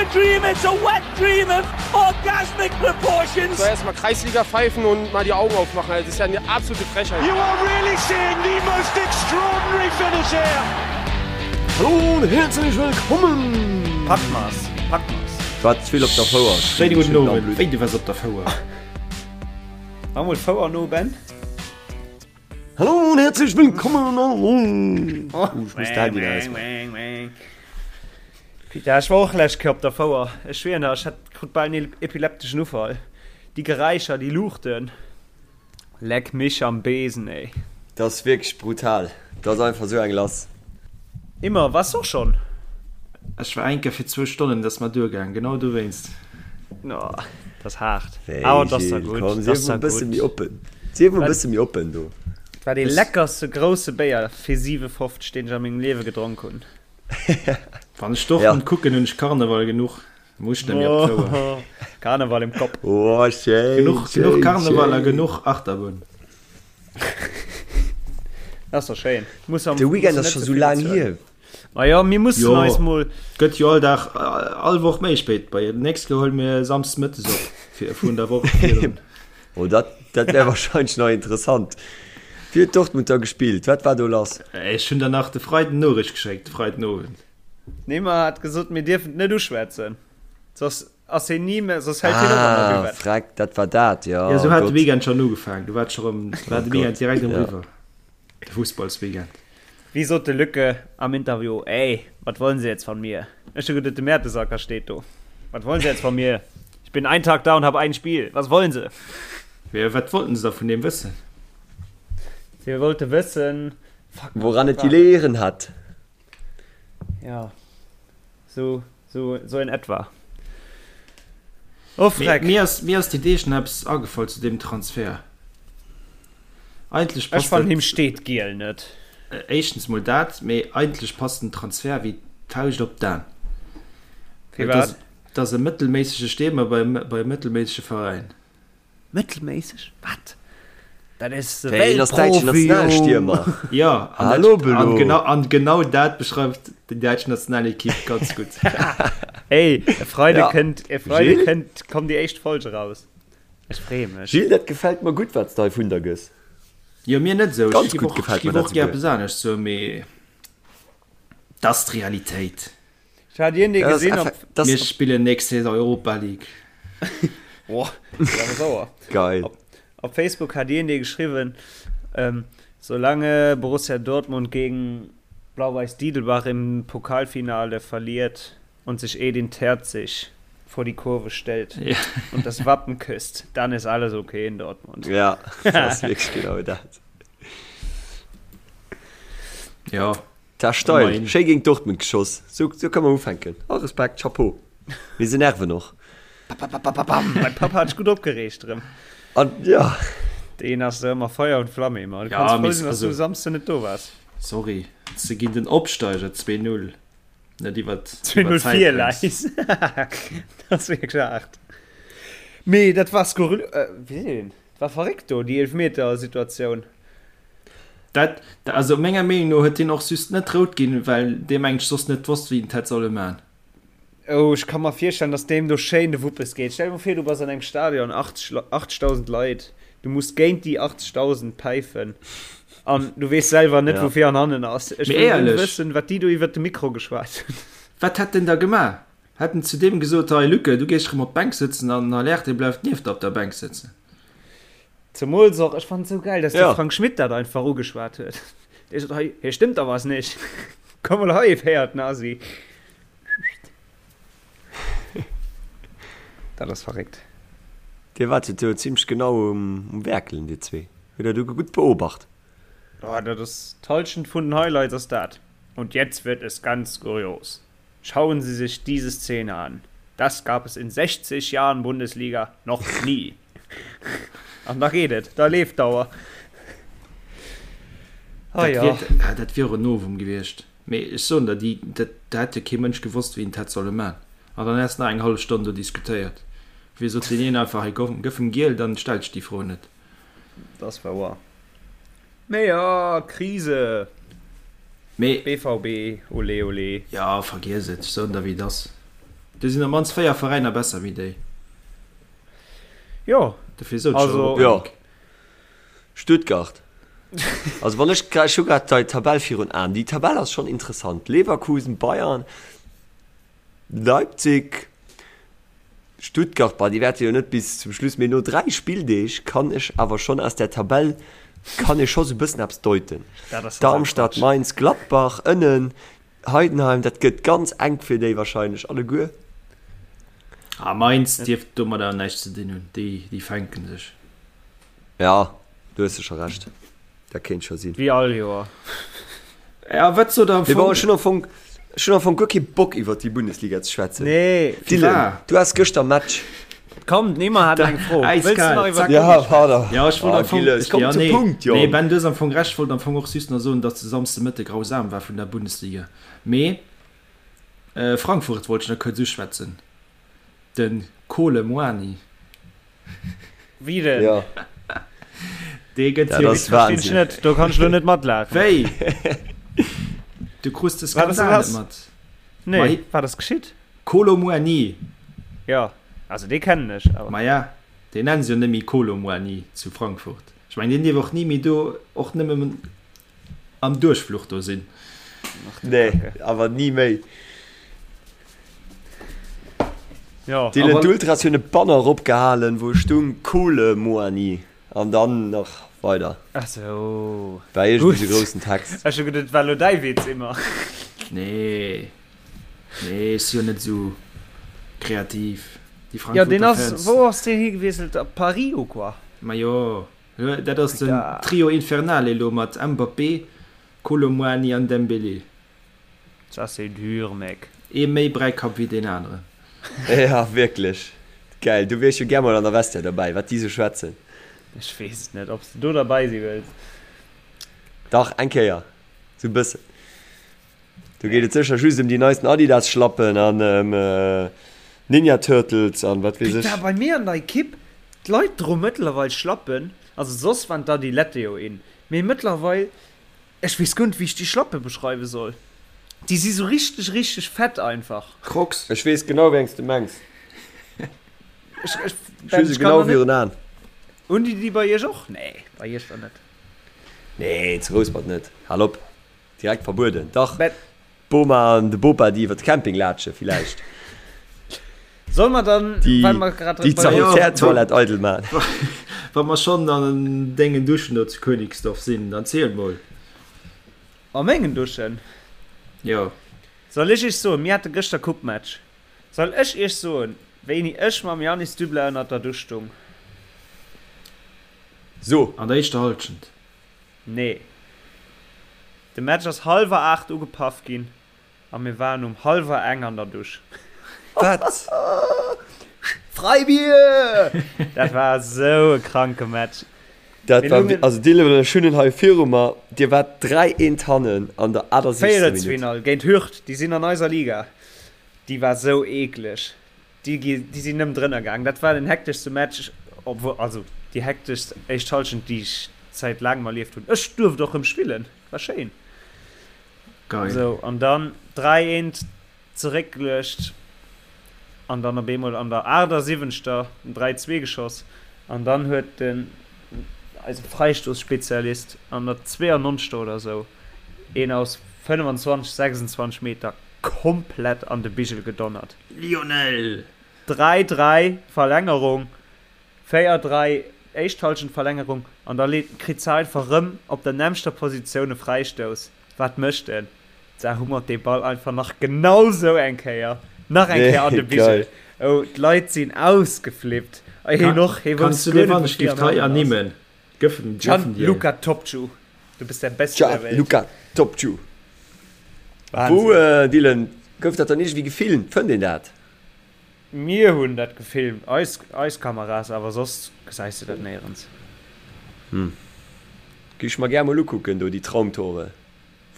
a dream, it's a wet dream of orgasmic proportions. So erstmal Kreisliga pfeifen und mal die Augen aufmachen. Das ist ja eine absolute Frechheit. You are really seeing the most extraordinary finish here. Hallo und herzlich willkommen! Packmas, Packmas. War ze vill op der Fouer. Schéine gudden Owend. Wéi, du waars op der Fouer? Mach mol d'Fouer no, Ben. Hallo und herzlich willkommen! Oh, ich muss d'Handy ausmachen. Peter, ech war och lescht Kéier op der Fouer. Ech schwieren der, ech hat krut bal en epilepteschen Ufall. Déi Geräischer, déi Luuchten. Leck mich am Besen, ey. Dat ass wierklech brutal. Dat ass einfach sou eng lass. Immer, wars och schon? Ech war eng Kéier fir zwou Stonnen, dat ass mer duergaang, genau dowéinst. Oh, dat ass haart. Wéi, Awer dat ass da Gilles, gutt, komm, dat sief ass mol da e bësse gutt. méi oppen. Sief mol e bësse méi oppen do. Dat war dee leckerste grousse Béier fir 7,50, deen ech a mengem Liewe gedronk hunn. Wann ech Dortmund kucken, hunn ech Karneval genuch. Muss net méi op d'Fouer. Karneval im Kopf. Oh, schéin, Genuch, schéin, genuch Karneval a schéin. genuch Achterbunn. Dat ass doch schéin. Muss am, De Weekend muss ass net scho ze sou vill laang bezuelen. hier. Ma jo, mir mussen Jo, eis mol. gëtt jo all Dag, all Woch méi spéit. Bei nächst Kéier huele mir Samsdes mëttes op, fir vun der Woch virdrun. Oh, dat, dat wär wahrscheinlech nach interessant. Wéi huet Dortmund da gespillt? Wat war do lass? Ech hunn der nach de Freiden Noriicht geschéckt, de Freidenowend. Neymar hat gesot, mir dierfen et net uschwätzen, soss ass hien ni méi, soss hält hien op an der Ah, Buvette. freck, dat war dat, jo. Ja, sou Oh hat de Gott. Weekend schonn ugefaangen. Du war scho rëm, war Oh de Weekend Gott, direkt erëm ja. eriwwer, de Fussballsweekend. Wéi sot de Lücke am Interview, Ey, wat wollen Sie jetzt von mir? Ech hu geduet, de Mertesacker steet do. Wat wollen Sie jetzt von mir? Ich bin einen Tag da und hab ein Spiel. Was wollen Sie? Jo, wat wollten se da vun deem wëssen? Si wollte wëssen, fuck, Woran wat et war dat? geleeën hat. Ja, sou, sou, sou in etwa. Oh, Freck. Mir ass, mir ass déi Deeg nach eppes agefall zu deem Transfer. Eigentlech Ech passt fannen, dat, him steet giel net. éischtens mol dat, mee eigentlech passt den Transfer wéi d'Fauscht op d'An. Well et ass, Firwat? et ass e mëttelméissege Stiermer bei, bei e mëttelméissege Veräin. Mëttelméisseg? Wat? Dat is de Wéi, en ass däitschen Weltprofi, jo! Nationalstiermer. Jo, an dat, Hallo an Belo. genau, an genau dat beschreift déi däitsch Nationalequipe ganz gutt. Ey, e Freide Ja. kënnt, e Freide Gilles? kënnt, kommt déi éischt Folge raus. Ech freeë mech. Gilles, dat gefält mer gutt, wat s de hei vun der gëss. Jo, mir net esou. Ech Ganz giff gutt och, ech gefält giff mer dat och gär souguer. eppes anescht soen, mee dat ass d'Realitéit. Ech hat iergendee Dat ass gesinn op. effe, dat Mir ass spillen nächst Saison Europa League. Boah, dat ass awer sauer. geil. Op, op Facebook hat iergendee geschriwwen, ähm, solange Borussia Dortmund gegen Blau-Weiß Didelbach im Pokalfinale verliert und sich Edin Terzic vor die Kurve stellt Ja. und das Wappen küsst, dann ist alles okay in Dortmund. Ja, dat ass wierklech genau dat. Ja. Ta steil, Immerhin. schéi géint Dortmund geschoss. Sou, sou kann man ufänken. Oh, Respekt, Chapeau. Mee se nerven och. Bam, mein Papa hat sech gutt opgereegt erëm. An, ja. Deen ass ëmmer Feuer und Flamme immer. Du Ja, kanns frou mee sinn, dass du also- Samsden net do waars. Sorry, se ginn den Opsteiger 2-0 net iwwer 2-0 vir Läis. Dat ass wierklech haart. Mee dat war skurril, äh, wéi seet een? Dat war verréckt do, déi Eelefmeter-Situatioun. Dat, also menger Meenung no huet deen och just net rout ginn, well dee mengt soss net wosst wéi en hätt solle man. Oh, ech ka mer virstellen, dass deem do schéin de Wuppes geet. Stell dir mol vir, du bass an engem Stadion, 80, 80.000 Leit, du muss géint déi 80.000 päifen an du weess selwer net, Ja. wou vir an hannen ass. Ech Mee wëll nëmmen éierlech. wëssen, wat déi do iwwert de Mikro geschwat hunn. Wat hätt en da gemaach? Hätt en zu deem gesot, hei Luke, du gees rëm op d'Bänk sëtzen an den Haller, dee bleift nieft der op der Bänk sëtzen? Zemools och, ech fannen et sou gäil, dass de Ja. Frank Schmidt dat einfach ugeschwat huet. Dee sot, hei, hier stëmmt da was nicht. Komm mol hei, féiert Nasi. Dat ass verréckt. Dir waart jo do zimmlech genau um, um Werkelen, dir zwee. Hutt der do gutt beobacht. Oh, dat ass d'Halschent vun den Highlights ass dat. Und jetzt wird es ganz kurios. Schauen Sie sich diese Szene an. Das gab es in 60 Jahren Bundesliga noch nie. An da geet et, da leeft d'Auer. Ah Dat ja. wier, ah, dat wier och en Novum gewiescht. Mee ech soen der, déi, dat, dat hätt jo kee Mënsch gewosst, wéi en et hätt solle man. An dann häss nach eng hallef Stonn do diskutéiert. Wéi sot deen een einfach, hei komm, gëff em giel, dann stellt sech déi Fro net. Dat ass wouer. Mee jo, Krise. Mee. BVB, olé olé. Jo, vergiess et, ech soen der, wéi et ass. Do sinn op mannst 4 Veräiner besser wéi déi. Jo. Dofir sot ech Also. Europa Jo. League. Stuttgart. Also wann ech, ech hu grad dei Tabell virun Aen. Déi Tabell ass schonn interessant. Leverkusen, Bayern, Leipzig, Stuttgart, bah, déi wäerte jo net bis zum Schluss, mee no 3 Spilldeeg kann ech awer schonn aus där Tabell kann ee scho sou bëssen eppes deuten. Dat ass total Darmstadt, Quatsch. Mainz, Gladbach ënnen, Heidenheim, dat gëtt ganz enk fir déi wahrscheinlech alleguer. Ah, Mainz dierft domadder näischt ze dinn hunn, déi, déi fänken sech. Ja, do hues de scho Recht, dat kéint scho sinn. Wéi all Joer. Ja, wat sot der am Mee bon, Fong? ech hunn am Fong, ech hunn am Fong guer kee Bock iwwert déi Bundesliga ze schwätzen. Nee. Dylan, du haas gëschter Match. Komm, den Emma hat eng Fro. Wëlls du Äiskal, nach iwwer zack. d'Uni Ja, schwätzen? pardon. Ja, ech wollt Ah, am Fong, Gilles, ech, komm ja, zum nee, Punkt, nee, Jong. Ben, du hues am Fong Recht, ech wollt am Fong och just nach soen, datt de Samsde Mëtte grausam war vun der Bundesliga. Mee Frankfurt wollt ech nach kuerz uschwätzen, de Kolo Muani. Wéi denn? Ja. Dee gëtt Dat jo. ass Verstinn ech Wahnsinn. net, do kann ech lo net matlaachen. Wéi? Du krus de Wat ass Skandal net lass? mat? Nee, Mei. wat ass geschitt? Kolo Muani. Jo, also dee kennen ech, awer. Maja, deen nennen se jo net méi Kolo Muani zu Frankfurt. Ech mengen, deen dierf och ni méi do, och nëmmen am Duerchfluch do sinn. Ach du Nee, Kacke. awer ni méi. Jo. Dylan, Awer. d'Ultras hunn e Banner eropgehalen, wou stung Kole Muani an dann nach weider. Ach sou. War iergendwéi Gutt. sou groussen Text. Ech hu geduet, et war lo däi Witz, Emma. Nee, nee, ech si jo net esou kreativ. Déi Jo, deen Frankfurter ass, Fans. wou ass deen higewiesselt? Op Paris ou quoi? Majo, dat ass den Putain. Trio Infernale elo mat Mbappé, Kolo Muani an Dembélé. Ça c'est dur, mec. Ee méi Bräikapp wéi deen aneren. Ja, wierklech. Geil, do wier ech jo gär mol an der Vestiaire derbäi, wat déi sou schwätzen. Ech weess et net, ob s de do derbäi si wëlls. Dach, eng Kéier. Sou e bëssen. Do geet et sécher just ëm déi neisten Adidas-Schlappen an ëm Ninja Turtles an wat weess ech. Putain, bei mir an der Ekipp, d'Leit droe mëttlerweil Schlappen. Also soss waren d'Adilette jo in, mee mëttlerweil, ech weess guer net wéi ech déi Schlappe beschreiwe soll. Déi si sou richteg, richteg fett einfach. Crocs. Ech weess genau wéi eng s de mengs. Ech, ech, Ech hu se genau virun Aen. Hunn déi déi bei iech och? Nee, bei iech dann net. Nee, zu Rouspert net. Hal op. Direkt verbueden. Dach, Mä d'Boma an de Bopa, déi iwwer de Camping laatsche villäicht. soll mer dann, Déi, well mer grad déi bei der. d'Sanitärtoilette eidel maachen. Wa mer schonn an dengen Duschen do zu Königsdorf sinn, dann ziel mol. A mengen Duschen? Jo. Soll ech iech soen, mir hate gëschter Coupe-Match. Soll ech iech soen, wéini ech mam Yannis Dubler ënnert der Dusch stung? So. An der éischter Halschent. Nee. De Match ass hallwer 8 ugepaff ginn a mir waren um hallwer eng an der Dusch. Wat? Freibier! Dat war esou e kranke Match. Dat Mir war, lungen. also Dylan, ech hunn en hei viru mer, Dir waart 3 eent hannen an der 78. Minutt. Véierelsfinall géint Hürth, déi sinn an eiser Liga. Déi war sou eekleg. Déi gi, déi sinn nëmmen drënner gaang. Dat war den hekteschste Match, obwuel, also déi hekteschst éischt Hallschent, déi ech säit laangem erlieft hunn. Ech duerft och rëm spillen, war schéin. Geil. Sou, an dann 3 eent zeréckgeluecht an dann op eemol an der 78. Den 3, 2 geschoss an dann huet den, eise Freistoßspezialist an der 92. oder sou een aus 25, 26 Meter komplett an de Bigel gedonnert. Lionel! 3, 3 Verlängerung, 4, 3 éischt Halschent Verlängerung an da leet kritt se einfach rëm op der nämmster Positioun e Fräistouss. Wat mécht en? Da hummert dee Ball einfach nach genau sou eng Kéier, nach eng Kéier an de Bigel. Oh, d'Leit sinn ausgeflippt. A hien och, hie Kanns wousst du guer dee net, wann wou ech vir giff an hei hannen ass. ernimmen? Gëffen, gëffen dir. Gianluca Topciu, du bist der Beste der Welt. Gianluca Topciu. Wou, Dylan, gouf dat dann iergendwéi gefilmt? Fënnt een dat? Mir hunn dat gefilmt, eis, eis Kameras, awer soss gesäis de dat néierens. Hm. Géif ech mer gär mol ukucken do, déi Traumtore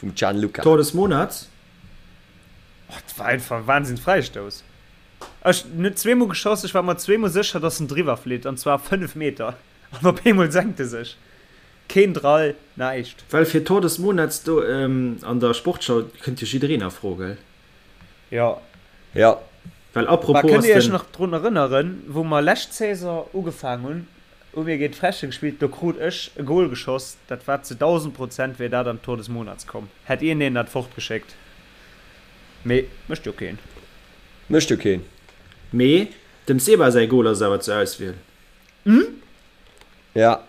vum Gianluca. Tor des Monats? Oh, dat war einfach e Wahnsinns-Fräistouss. Ech, en huet zweemol geschoss, ech war mer zweemol sécher, dass en driwwer flitt, an zwar 5 Meter, an op eemol senkt e sech. Keen Drall, näischt. Well fir Tor des Monats do an der Sportschau kënnt jo jiddereen a Fro, gell? Jo. Jo. Well Bah, apropos kënnt ass dir iech den. nach drun erënneren, wou mer lescht Saison ugefaang hunn, hu mir géint Frechen gespillt, do krut ech e Goal geschoss, dat war zu 1000 Prozent wär dat an d'Tor des Monats komm, hätt iergendeen dat fortgeschéckt, mee mécht jo keen. Mécht jo keen. Mee dem Seba säi Goal ass awer zur Auswiel. Ja.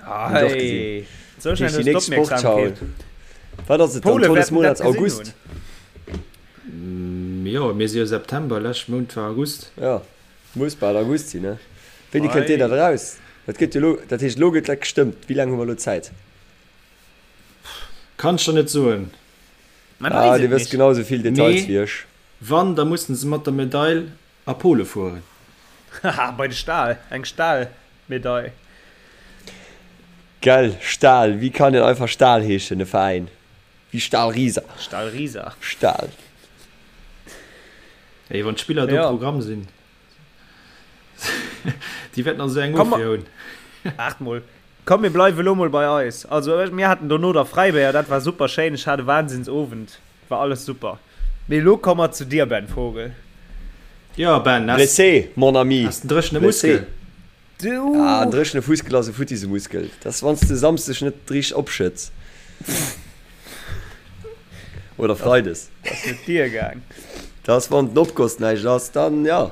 Hunn ech och gesinn. Hey, sou Dat schnell heescht hues déi du nächst Sportschau. d'Opmierksamkeet. Wat ass et dann? D'Pole Tor des wäerten dat Monats gesinn August? hunn. Jo, mir si jo September, lescht Mount war August. Ja, muss bal August sinn, ne? Wéini kënnt deen Ei. dat eraus? Dat gëtt jo elo, dat heescht elo gëtt dat gestëmmt. Wéi laang hu mer elo Zäit? Kann ech der net soen. Man Ah, weess dir et wësst nicht. genau esou vill Details Mee wéi ech. wann, da mussen se mat der Medail a Pole fueren. Haha, bei de Stahl, eng Stahlmedail. Gell, Stahl, wéi kann een einfach Stahl heeschen, e Veräin? Wéi Stahl Riesa. Stahl Riesa. Stahl. Ey, wann d'Spiller do Ja. Programm sinn, déi wäerten also eng Komm, Ofwier hunn. Waart mol. Komm, mir bleiwe lo mol bei eis. Also, mir haten dono da Fräibéier, dat war super schéin. Ech hat e Wahnsinnsowend. War alles super. Mee elo komme mer zu dir, Ben Vogel. Jo, Ben, has, Blessé, mon ami. has den dréchene Blessé. Muskel? Du! Ah, en dréchene Fuskel ass e futtise Muskel. Dat ass, wann s de Samsdeg net richteg opschëtts. Oder Freides. Dat ass net dir gaang. Dat ass, wann den Opgoss näischt ass, dann ja.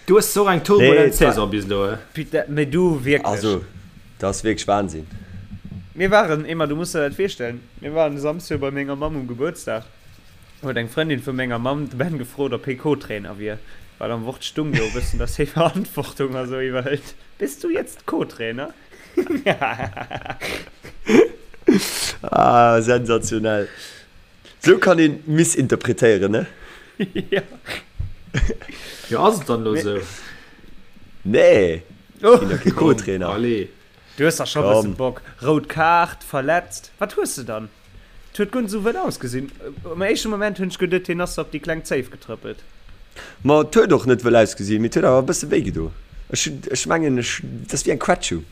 Du hues och eng Nee, turbulent et war. Saison bis elo, he? Putain, mee du wierklech. Also, dat ass wierklech Wahnsinn. Mir waren, Emma, du muss der dat virstellen, mir waren e Samsde bei menger Mamm um Gebuertsdag, huet eng Frëndin vu menger Mamm de Ben gefrot, ob hie Co-Trainer wier, well am Wort stung jo e bëssen, dass hie Verantwortung a sou iwwerhëlt. Bist du jetzt Co-Trainer? Ah, sensationell. Sou kann een missinterpretéieren, ne? Jo. Jo, ass et dann elo Mee. sou? Nee, Oh. ginn der kee Komm, Co-Trainer. allez. Du hues dach scho bëssen Komm. Bock. Rout Kaart, verletzt. Wat hues de dann? Et huet guer net sou wëll ausgesinn. Am éischte Moment hunn ech geduet, hien ass der op déi kleng Zéif getrëppelt. Ma et huet och net wëll ausgesinn, mee et huet awer e bësse wéi gedo. Ech hunn, ech mengen, ech, dat ass wéi eng Quetschung.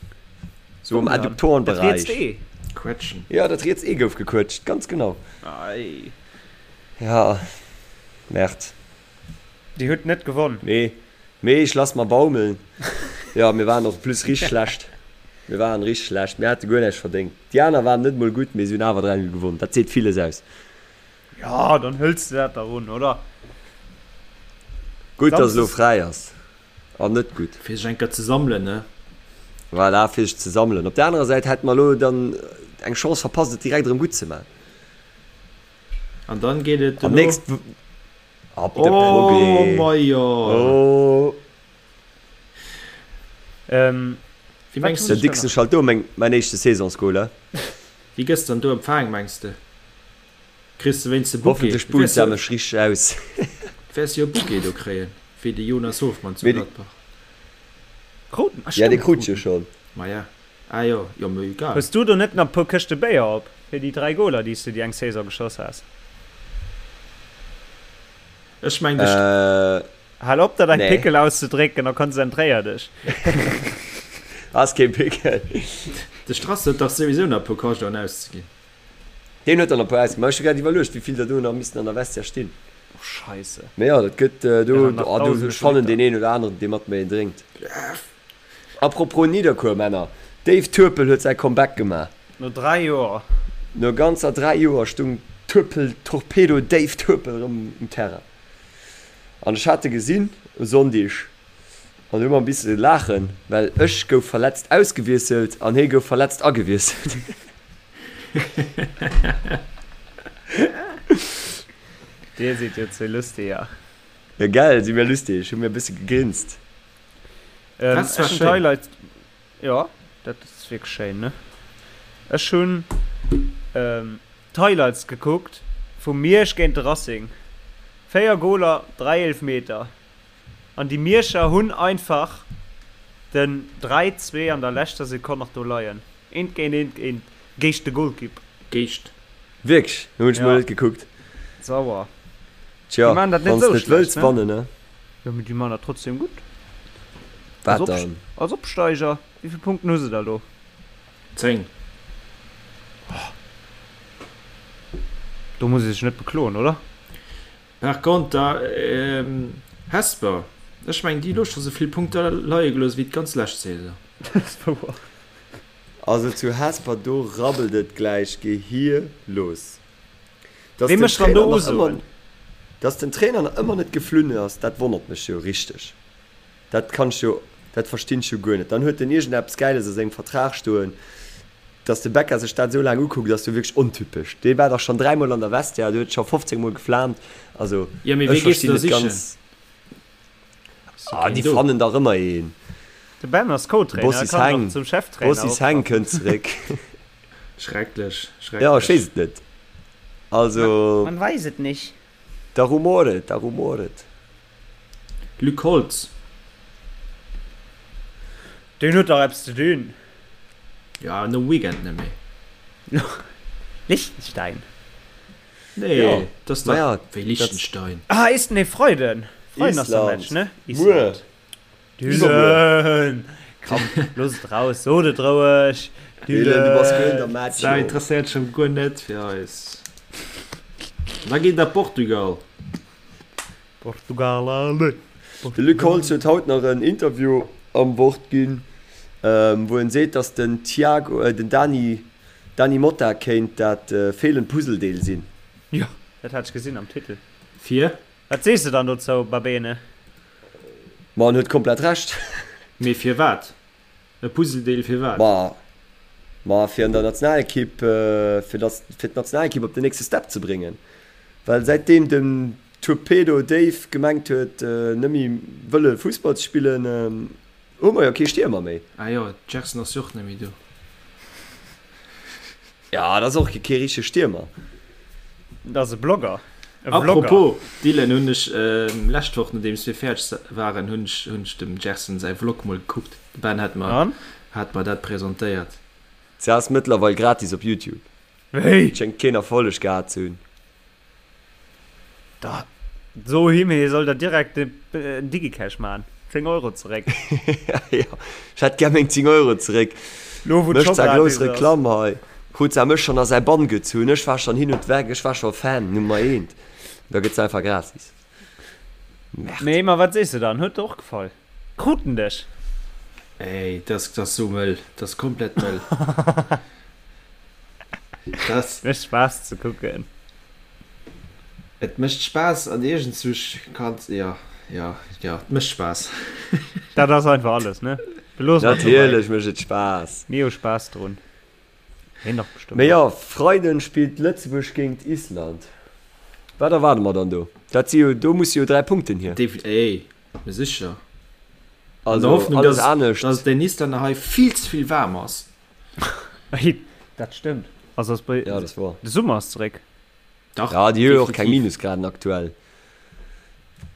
Sou am Wou dann? Dat Adduktorenbereich. rietst Ee? Quetschen. Jo, dat riets Ee gouf gequëtscht, ganz genau. Ei. Ja, Merde. Dir hutt net gewonn. Nee, mee ech lass mer baumeln. Jo, mir waren och plus richteg schlecht. Mir waren richteg schlecht. Mir hate guer näischt verdéngt. Déi aner waren net mol gutt, mee si hunn awer 3, 0 gewonn. Dat seet villes aus. Jo, dann hëls de dat dach un, oder? Gutt, dass elo Samsdes. fräi ass. An net gutt. Fir sech eng Kéier ze sammelen, ne? Voilà, fir sech ze sammelen. Op der anerer Säit hätte mer elo dann eng Chance verpasst, et direkt erëm gutt ze maachen. An dann geet et An dono. nächst Ab de Oh Progrès. majo! Oh. Ähm, Wéi wat mengs hunn Den ech de, da Dixon nach? schalt do meng mäin éischte Saisonsgoal, he? wéi gëss dann do empfaang, mengs de? Kriss de wéinst de Bouquet? Hoffentlech Du buht wäers se jo, mech richteg aus. wäers jo e Bouquet do kréien, wéi de Jonas Hofmann zu Mee de, Gladbach. Kruten? Ah ja, dee stimmt, krut ech jo kruten. schonn. Maja, ah jo, jo, mee egal. Hues du do net nach e puer Këschte Béier op fir déi 3 Goler, déi s du déi eng Saison geschoss has? Ech meng de. Äh, Hal op der däi nee. Pickel auszedrécken a konzentréier dech. Ass kee Pickel. De Strass huet dach souwisou nach e puer Kajdoen auszeginn. Deen huet der nach e puer ausginn. Ma ech hu grad iwwerluecht, wéi vill der do nach missten an der Vestiaire stinn. Oh Scheisse. Mee jo, dat gëtt do, Wären nach oh, do, dausende ech fannen Liter. deen een oder aneren, dee mat mir een drénkt. Apropos Nidderkuer, Männer, Dave Turpel huet säi Comeback gemaach. No 3 Joer. No ganzer 3 Joer stung Turpel Torpedo Dave Turpel erëm um Terrain. An ech hat e gesinn e Sonndig an hu mer e bisse laachen, well ech gouf verletzt ausgewiesselt an hie gouf verletzt agewiesselt. Dir sidd jo zwee Lustiger. Jo gell, si mir lustig, hu mir e bësse gegrinst. Ähm, Das war ech hunn schéin. d'Highlights. Ja, dat ass wierklech schéin, ne? Ech hunn ähm, d'Highlights gekuckt vu Miersch géint de Racing. 4 Goler, 3 Eelfmeter. An déi Mierscher hunn einfach den 3, 2 an der leschter Sekonn nach do leien. Eent géint eent géint géint de Golkipp. Géischt. Wierklech? Hunn ech mol Ja. net gekuckt. Sauer. Tja, Déi maachen dat net wann s sou net schlecht, wëlls ne? wannen, ne? Jo, mee déi man dat trotzdem gutt. Wat Als, Op dann? als Opsteiger, wéi vill Punkten hu se da lo? 10. Do muss ee sech net bekloen, oder? Par conter Hesper, ech mengen déi hu lo scho sou vill Punkter leie gelooss wéi d'ganz lescht Saison. Dat ass wouer. Also zu Hesper do rabbelt et gläich gehierlos. Dass Wee den mécht dann Trainer do nach ëmmer, Usoen? dass den Trainer nach ëmmer net geflunn ass, dat wonnert mech jo richteg. Dat kann ech jo, dat verstinn ech jo guer net. Dann huet en iergendeppes Gäiles a sengem Vertrag stoen. Dass de Becca sech dat esou laang ukuckt, ass jo wierklech ontypesch. Dee war dach schonn dräimol an der Vestiaire, dee huet scho 15 mol geflaamt. Also Jo, mee ech wee gees de verstinn da net sichen? ganz. Ass jo Ah, keen déi do. fannen dach ëmmer een. De Ben ass De Co-Trainer, e Bossis kann Heng, dach zum Cheftrainer Bossis Heng optrappen. kënnt zeréck. Schrecklech, Jo, ech schrecklech. weess et net. Also. Man weiß et nicht. Da rumort et, da rumort et. Luc Holtz. Deen huet dach eppes ze dinn. Jo, nom Weekend net méi. Liechtenstein? Nee, Jo, dat ass dach maja, wéi dat. Liechtenstein. Ah, is, nee, Freiden. Freiden ass der Match, Island. ne? Muer. Island. Iwwermuer. Dylan! Komm, looss et raus, sot et roueg. Dylan, du bass guer Dylan! der Match, Dat jo. interesséiert scho guer net fir eis. Da geet et Portugal. Portugal, allez! De Luc Portugal! Holtz huet haut nach en Interview am Wort ginn, wou en seet, datt den Thiago, den Dani, Dany Motta kéint dat feelend Puzzledeel sinn. Jo, dat hat ech gesinn am Titel. Fir? Wat sees de dann dozou, Babene? Ma en huet komplett Recht. Mee firwat? E Puzzledeel firwat? Ma, ma fir an der Nationalekipp, fir dass, fir d'Nationalekipp op den nächste Step ze bréngen. Well säitdeem den Torpedo Dave gemengt huet, net méi wëlle Fussball ze spillen, hu mer jo kee Stiermer méi. Ah jo, d'Gerson ass jo och net méi do. Ja, dat ass och kee richtege Stiermer. Dat ass e Blogger. E Vlogger. Apropos Dylan, hunn ech lescht Woch, nodeems mir fäerdeg waren, hunn ech hunn ech dem Gerson säi Vlog mol gekuckt. De Ben hat mer An? hat mer dat presentéiert. Se ass mëttlerweil gratis op YouTube. Wéi? Schéngt keen Erfolleg gehat ze hunn. Da so him hie soll der direkt en Digicash maan. 10 Euro zeréck. Jo, ech hätt gär meng 10 Euro zeréck. Lo wou Mécht d'scho sa grouss gratis ass. Reklamm hei. Huet sa mech schonn a säi Bann gezunn. Ech war schonn hin und weg, ech war scho Fan Nummer eent. Da gëtt se einfach gratis. Merde. Nee, ma wat sees de dann? Huet der och gefall? Krut en dech? Ey, dat ass sou mëll. Dat ass komplett mëll. Dat. Mécht Spaass ze kucken. Et mécht Spaass an iergendzuch kanns, jo, jo, jo, et mécht Spaass. Dat ass einfach alles, ne? Beloosse mer et dobäi. Natierlech mécht et Spaass. Mir hu Spaass drun. Hien dach bestëmmt Mee jo, och. Freiden spillt Lëtzebuerg géint Island. Wat erwaarde mer dann do? Dat si jo, do musse jo 3 Punkten hier. Definitiv, ey, mee sécher. An der Also Hoffnung, alles dass, anescht. dass et den Islänner hei vill ze vill waarm ass. Dat stëmmt. Also ass bei, Ja, dat wor. de Summer ass zeréck. Dach, Ja, déi hu jo och keng definitiv. Minusgraden aktuell.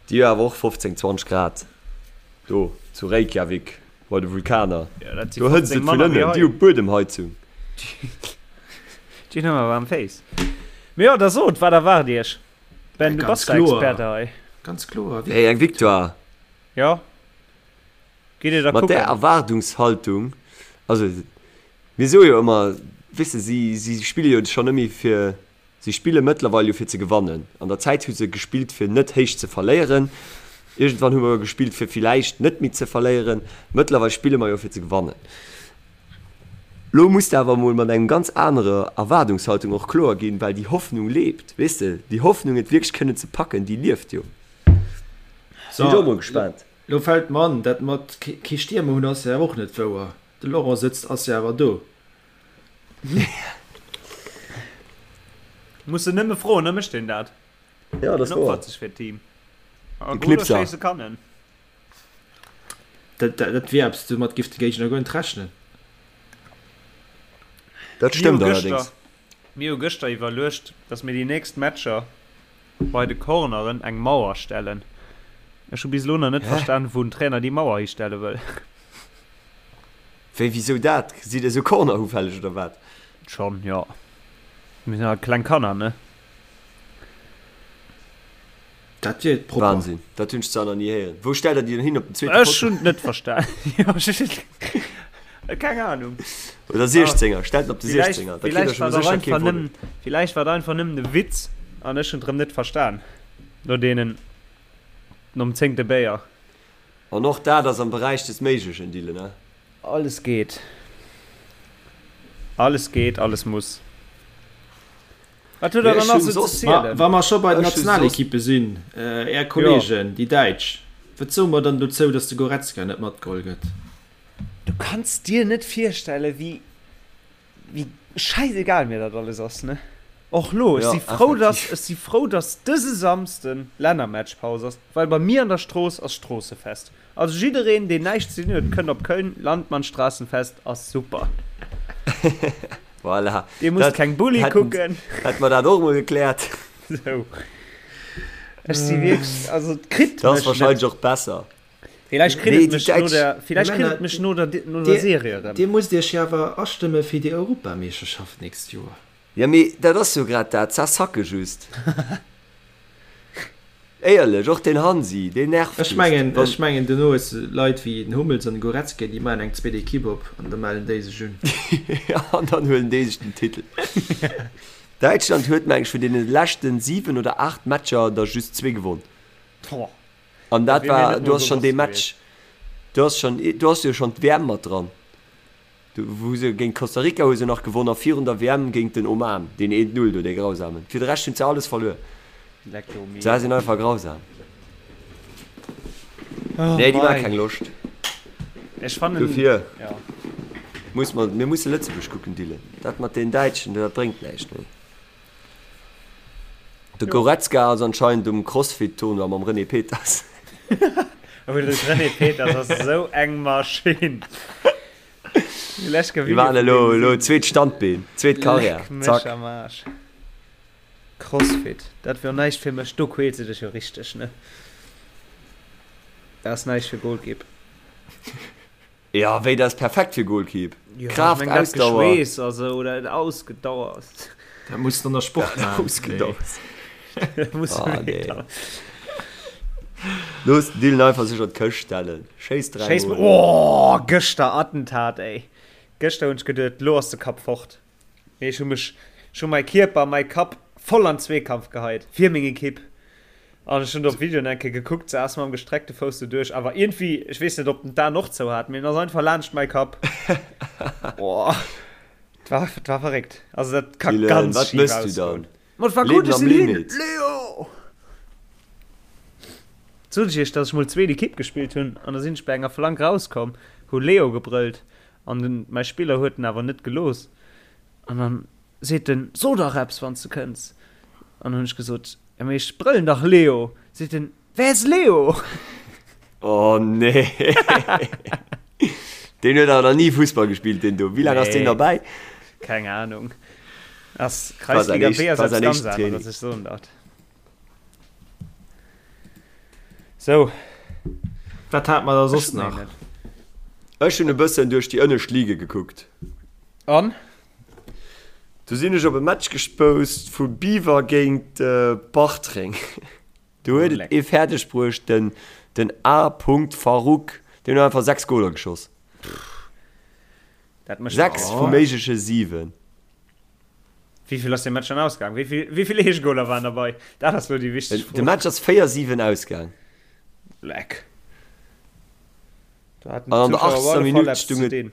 Déi hu awer och 15, 20 Grad do zu Reykjavik bei de Vulkaner. Ja, dat si Do hëtzt 15 et vun manner wéi ënnen, hei. déi hu Buedemheizung. Déi hunn ëmmer waarm Féiss. Mee jo, da sot, wat erwaart Iech? Ben, Ja, du ganz bass der kloer. Experte hei. Ganz kloer. Hey, eng Victoire! Jo. Gitt Dir da Mat där kucken? Erwaardungshaltung, also mir soe jo ëmmer, weess de, si, si spille jo schonn net méi fir, si spille mëttlerweil jo fir ze gewannen. An der Zäit hu se gespillt fir net héich ze verléieren. Iergendwann hu mer gespillt fir villäicht net méi ze verléieren. Mëttlerweil spille mer jo fir ze gewannen. Lo muss de awer emol mat engem ganz anerer Erwaardungshaltung och kloer ginn, well déi Hoffnung lebt, weess de, déi Hoffnung et wierklech kënnen ze packen, déi lieft jo. Sinn ech och mol gespaant. Lo fällt mer an, dat mat kee Stiermer hunn ass jo awer och net wouer. De Laurent sëtzt ass jo awer do. Muss en nëmme froen, da mécht en dat. Ja, dat ass En wouer. opfert sech fir d'Team. A De Goler Knipser. schéisse kann en. Dat dat wier eppes, domat giff de Géigner guer net rechnen. Dat Mir hu stëmmt gëschter, allerdéngs. mir hu gëschter iwwerluecht, datt mir déi nächst Matcher bei de Corneren eng Mauer stellen. Ech hu bis elo nach net Hä? verstan, wou den Trainer déi Mauer histelle wëll. Wéi, wisou dat? Sidd der sou cornerufälleg oder wat? Schon, jo. Mir sinn halt kleng Kanner, ne? Dat wier propper. Wahnsinn, dat hunn ech zwar nach ni héieren. Wou stellt der déi dann hin, op den zweete Ech Potto? hunn et net verstan. Jo, ech keng Ahnung. Oder 16er, stellt en op de Villäicht, 16er, da kritt der villäicht scho war et sécher einfach kee Volley. nëmmen, villäicht war et einfach nëmmen e Witz an ech hunn et erëm net verstan. No deenen, nom zéngte Béier. An och dat ass am Beräich des Méiglechen, Dylan, ne? Alles geet. Alles geet, alles muss. Wat huet der dann nach sou ze zielen? Wa mer scho bei den Nationalekippe sinn, Är Kollegen, déi Däitsch, wat soe mer dann dozou, datt de Goretzka net matgeholl gëtt? Du kanns dir net virstellen, wéi Wéi schäisegal mir dat alles ass, ne? Och lo, ech si frou, dass, ech si frou, dass dëse Samsden Lännermatchpaus ass, well bei mir an der Strooss ass Stroossefest. Also jiddereen, deen näischt ze dinn huet, kënnt op Köln, Landmannstraßenfest ass super. Voilà. Dir musst keng Bulli kucken. Hätte mer dat och emol gekläert. Sou. Ech si wierklech, also et kritt mech net. Dat ass wahrscheinlech och besser. Villäicht kritt et mech no der, villäicht kritt et mech no der, no der Serie erëm. Dir musst iech jo awer astëmme fir déi Europameeschterschaft d'nächst Joer. Jo mee dat ass jo grad dat, ça sacke just. Éierlech, och den Hansi, deen nervt just. Ech mengen, ech mengen duerno hues de Leit wéi den Hummels an de Goretzka, déi maachen eng zweet Equipe op an da mellen déi sech un. An dann huelen déi sech den Titel. Däitschland huet meng ech vun deene leschten 7 oder 8 Matcher der just zwee gewonn. An dat war, du hast schon dee Match, du hast schon, du hast jo schon d'WM mat dran. Du, wou se géint Costa Rica hu se nach gewonn a virun der WM géint den Oman, deen 1-0 do, dee grausamen. Fir de Rescht hunn se alles verluer. Se sinn einfach grausam. Nee, déi maache keng Loscht. Ech fannen, Dofir ja. muss mer, mir musse Lëtzebuerg kucken, Dylan. Dat mat den Däitschen, dat bréngt näischt méi. De Goretzka ass anscheinend um Crossfit Tournoi mam René Peters. Oh, de René Peters ass esou eng Maschinn. Déi waren elo elo zweet Standbeen, zweet Karriär. Leck mech am Aarsch. Crossfit, dat wier näischt fir mech, do quäls de dech jo richteg, ne? Dat ass näischt fir Golkipp. Jo, wéi dat ass perfekt fir Goalkeep. Jo, ech Kraaft, meng dat Ausdauer. Geschweess a sou oder et ausgedauert. Dat muss de an der Sport maachen. Ausgedauert. Dat muss Ah, nee. dann. Looss den Dylan einfach sech an d'Këscht stellen. Schéiss dräi Schéiss Mol. Oh, gëschter Attentat, ey. Gëschter hunn ech geduet, lo ass de Kapp fort. Mee ech hu mech, ech hu mäi Kierper, mäi Kapp voll an Zweekampf geheit fir meng Ekipp. An ech hunn op Videoen eng Kéier gekuckt, se ass mam gestreckte Fouss do duerch, awer iergendwéi, ech weess net, ob den d'Aen och zou hat, mee en ass einfach laanscht mäi Kapp. Boah, et war, et war verréckt. Also dat ka Dylan, ganz wat schif mëss du ausgoen. dann? Ma et war gutt, Leben ech am sinn hin! Limit. Leo! Sot ech iech, dass ech mol zweet Ekipp gespillt hunn an da sinn ech bei enger Flank rauskomm, hu Leo gebrëllt An den mäi Spiller huet en awer net gelooss. An dann seet en, So dach eppes, wann s de kënns. An dann hunn ech gesot, Jo, mee ech brëllen dach Leo. Seet en, Wer ist Leo? Oh nee. Deen huet awer nach ni Fussball gespillt, deen do. Wéi laang ass deen Nee. derbäi? Keng Ahnung. Ass War säin Kreisliga éischt, B ass war eppes säin ganz éischten aneres, Training. ech soen dat. Sou. Wat hat mer da Ech soss hunn méi nach? net. Ech hunn e bëssen duerch déi ënnescht Ligue gekuckt. An? Du sinn ech op e Match gespoust vu Biwer géint Bartreng. Do huet et ee fäerdeg bruecht, den den A. Farouk, deen huet einfach 6 Goler geschoss. Dat mécht 6 vu méigleche 7. Wéi vill ass dee Match dann ausgaang? Wéi vill, wéi vill Eegegoler waren derbei? Dat ass lo déi wichteg Fro. De Match ass 4, 7 ausgaang. Leck. Do haten An an der d'Zuschauer op 80. alle Fall Minutt eppes stung ze et dinn.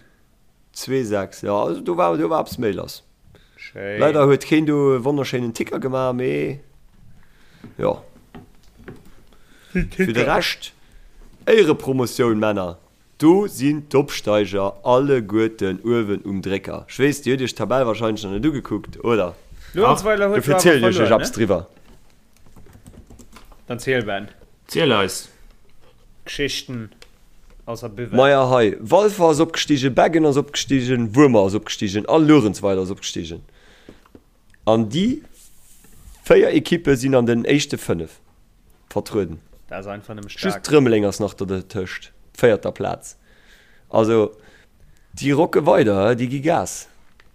2, 6. Jo, also do war, do war eppes méi lass. Schéin. Leider huet keen do e wonnerschéinen Ticker gemaach, mee jo. Fir de Rescht, Éierepromotioun, Männer! Do sinn d'Opsteiger alleguerten uewen um Drécker. Ech weess, dir hutt iech d'Tabell wahrscheinlech nach net ugekuckt, oder? Luerenzweiler huet Dofir jo awer zielen ech iech verluer, eppes ne? driwwer. Dann ziel, Ben. Ziel eis. Geschichten aus der Buvette. Maja hei, Walfer ass opgestigen, Beggen ass opgestigen, Wuermer ass opgestigen a Luerenzweiler ass opgestigen. An déi 4 Ekippe sinn an den éischte 5 vertrueden. Dat ass einfach nëmme Just staark. Rëmeleng ass nach dertëscht, véierter Plaz. Also déi rocke weider, déi gi Gas.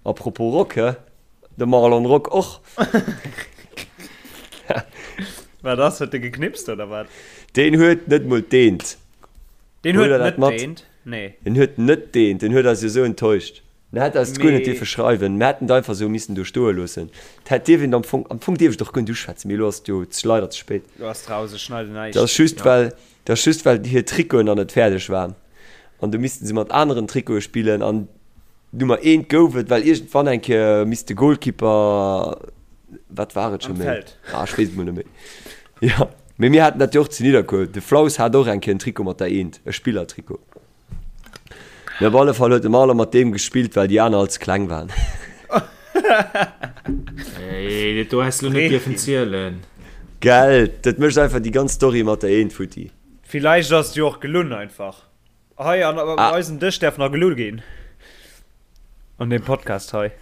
A propos Rock, he, de Marlon Rock och. Wat ass, huet de geknipst oder wat? Deen huet net mol d'Eent. Deen Huet huet der dat net mat? d'Eent, nee. En huet net d'Eent, en huet eis jo sou enttäuscht. Mir hätt eis guer net dierfe schreiwen, mir hätten et einfach esou missen do stoe loossen. Et hätt dierf een am Fong, am Fong dierf ech et och guer net uschwätzen, mee elo ass et jo leider ze spéit. Elo ass et raus, ech schneiden näischt. Dat ass just well, dat ass just well hir Trikoten nach net fäerdeg waren an du missten se mat aneren Trikote spillen an Nummer eent gouf et, well iergendwann eng Kéier misst de Goalkeeper, wat war et scho méi? Ah, ech weess et mol net méi. Jo, mee mir haten dat jo och zu Nidderkuer. De Flaus hat och eng Kéier en Trikot mat der Eent, e Spillertrikot. Mee op alle Fall huet de Marlon mat deem gespillt, well déi aner all ze kleng waren. Ey, dat do häss de lo net dierfen zielen. Gell, dat mécht einfach déi ganz Story mat der Eent futti. Villäicht ass et jo och gelunn einfach. Hei an op ah. eisem Dësch därf nach gelu ginn. An dem Podcast hei.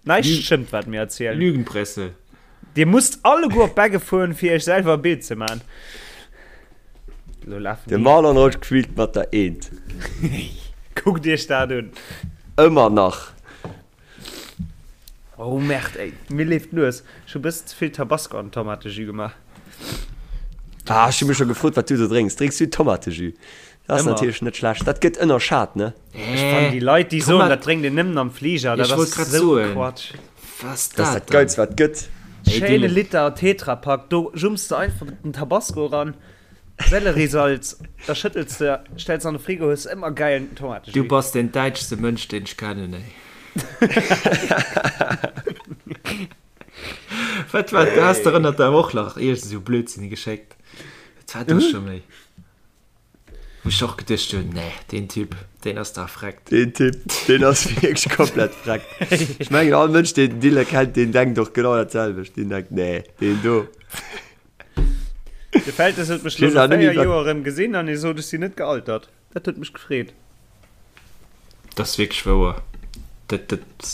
Näischt stëmmt, wat mir erzielen. Lügenpresse. Dir musst alleguer op Begge fueren, fir iech selwer e Bild ze man. Lo lafen De Marlon Roth quillt mat der Eent. Kuckt iech dat un. Ëmmer nach. Oh Merde ey, mir leeft d'Nues. Ech hu bëssen ze vill Tabasco an den Tomatejus gemaach. Ah, ech hu mech scho gefrot, wat du do drénks. Drénks du Tomatejus? Dat ass natierlech net schlecht. Dat gëtt ënnerschat, ne? Ech fannen déi Leit, déi soen, dat drénkt een nëmmen am Fliger, dat ass esou Quatsch. Dat ass dat Geilst, wat et gëtt. Schéine Liter Tetrapack, do jumps de einfach den Tabasco eran. Selleriesalz, da schëttels de, stells an de Frigo, hues ëmmer gäilen Tomatejus. Du bass deen däitschste Mënsch deen ech kennen ey. Wat war du has der ënnert der Woch nach iergend esou Blödsinn geschéckt. Wat war do scho méi? Wou ech och geduecht hunn, nee deen Typ deen ass dach vreckt. Deen Typ deen ass wierklech komplett vreckt. Ech mengen all Mënsch deen den Dylan kennt deen denkt och genau dat selwecht. Deen denkt nee deen do. De Feltes huet mech lo no 4 Joer erëm gesinn an hie sot, ech sinn net gealtert. Dat huet mech gefreet. Dat ass wierklech wouer. Dat, dat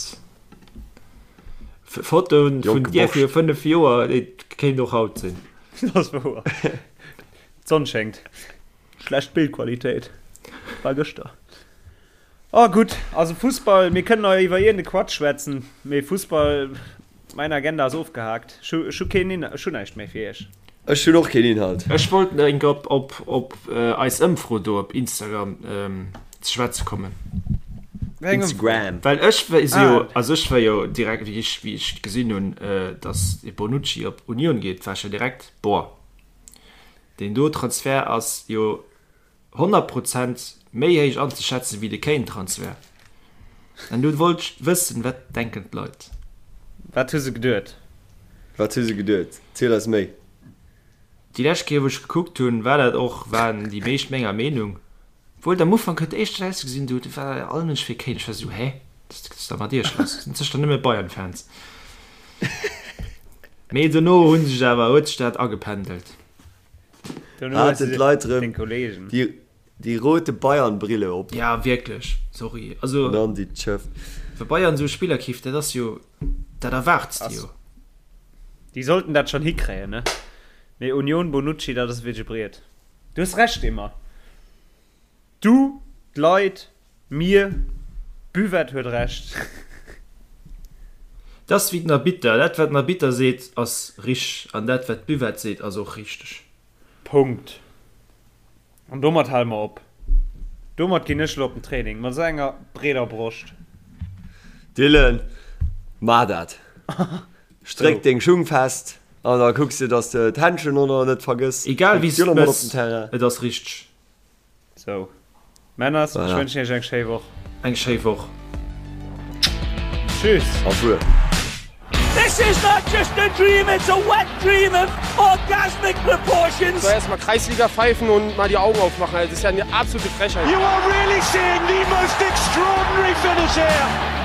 Fotoen vun dir fir 5 Joer, déi kéint och haut sinn. Dat ass wouer. D'Sonn schéngt. Schlecht Bildqualitéit. War gëschter. Oh gutt, also Fussball, mir kënnen nach iwwer iergende Quatsch schwätzen, mee Fussball, mäin Agenda ass ofgehaakt. Ech hu, ech hu keen Inhalt, ech hu näischt méi fir iech. Ech hunn och keen Inhalt. Ech wollt nach eng Kéier op, op eis Ëmfro do op Instagram ze schwätze kommen. Wéi eng Ëmfro? Instagram. Well ech si jo, also ech war jo direkt, wéi ech, wéi ech gesinn hunn, datt de Bonucci op Union geet, war ech jo direkt, boah, deen do Transfert ass jo 100 Prozent méi héich anzeschätzen wéi de Kane-Transfert. An du wollt ech wëssen, wat denken d'Leit? Wat hu se geduet? Wat hu se geduet? Ziel eis méi. Déi lescht Kéier wou ech gekuckt hunn, war dat och, waren déi meescht menger Meenung. Obwuel et am Ufank huet éischter ausgesinn, do war all Mënsch fir Kane. Ech war esou, hä, wat ass da mat iech lass? Sinn sécher nëmme Bayern-Fans. Mee dono hu sech awer, huet sech dat agependelt. Haten d'Leit rëm déi rote Bayern-Brille op. Ja wierklech, sorry. Also Nan déi Tschëff. Wa Bayern esou Spiller keeft, dat ass jo, dat erwaarts de jo. Déi sollten dat schonn hikréien, ne? Mee Union, Bonucci, dat ass wierklech e Briet. Du hues Recht, Emma. Du, d'Leit, mir, d'Buvette huet Recht. Dat ass wéi den Arbitter, dat wat den Arbitter seet ass rich an dat wat d'Buvette seet ass och richteg. Punkt. An domat hale mer op. Domat ginn ech elo op den Training, mat esou enger breeder Broscht. Dylan, Maach dat. Stréck deng Schung fest an da kucks de, dass de d'Händschen och nach net vergëss. Egal wéi s de et mëss, et ass richteg. Sou Männers, ech wënschen iech eng schéi Woch. Eng schéi Woch. Tschüss. Au revoir. This is not just a dream, it's a wet dream of orgasmic proportions. Soll erstmal Kreisliga pfeifen und mal die Augen aufmachen, das ist ja eine absolute Frechheit. You are really seeing the most extraordinary finish here.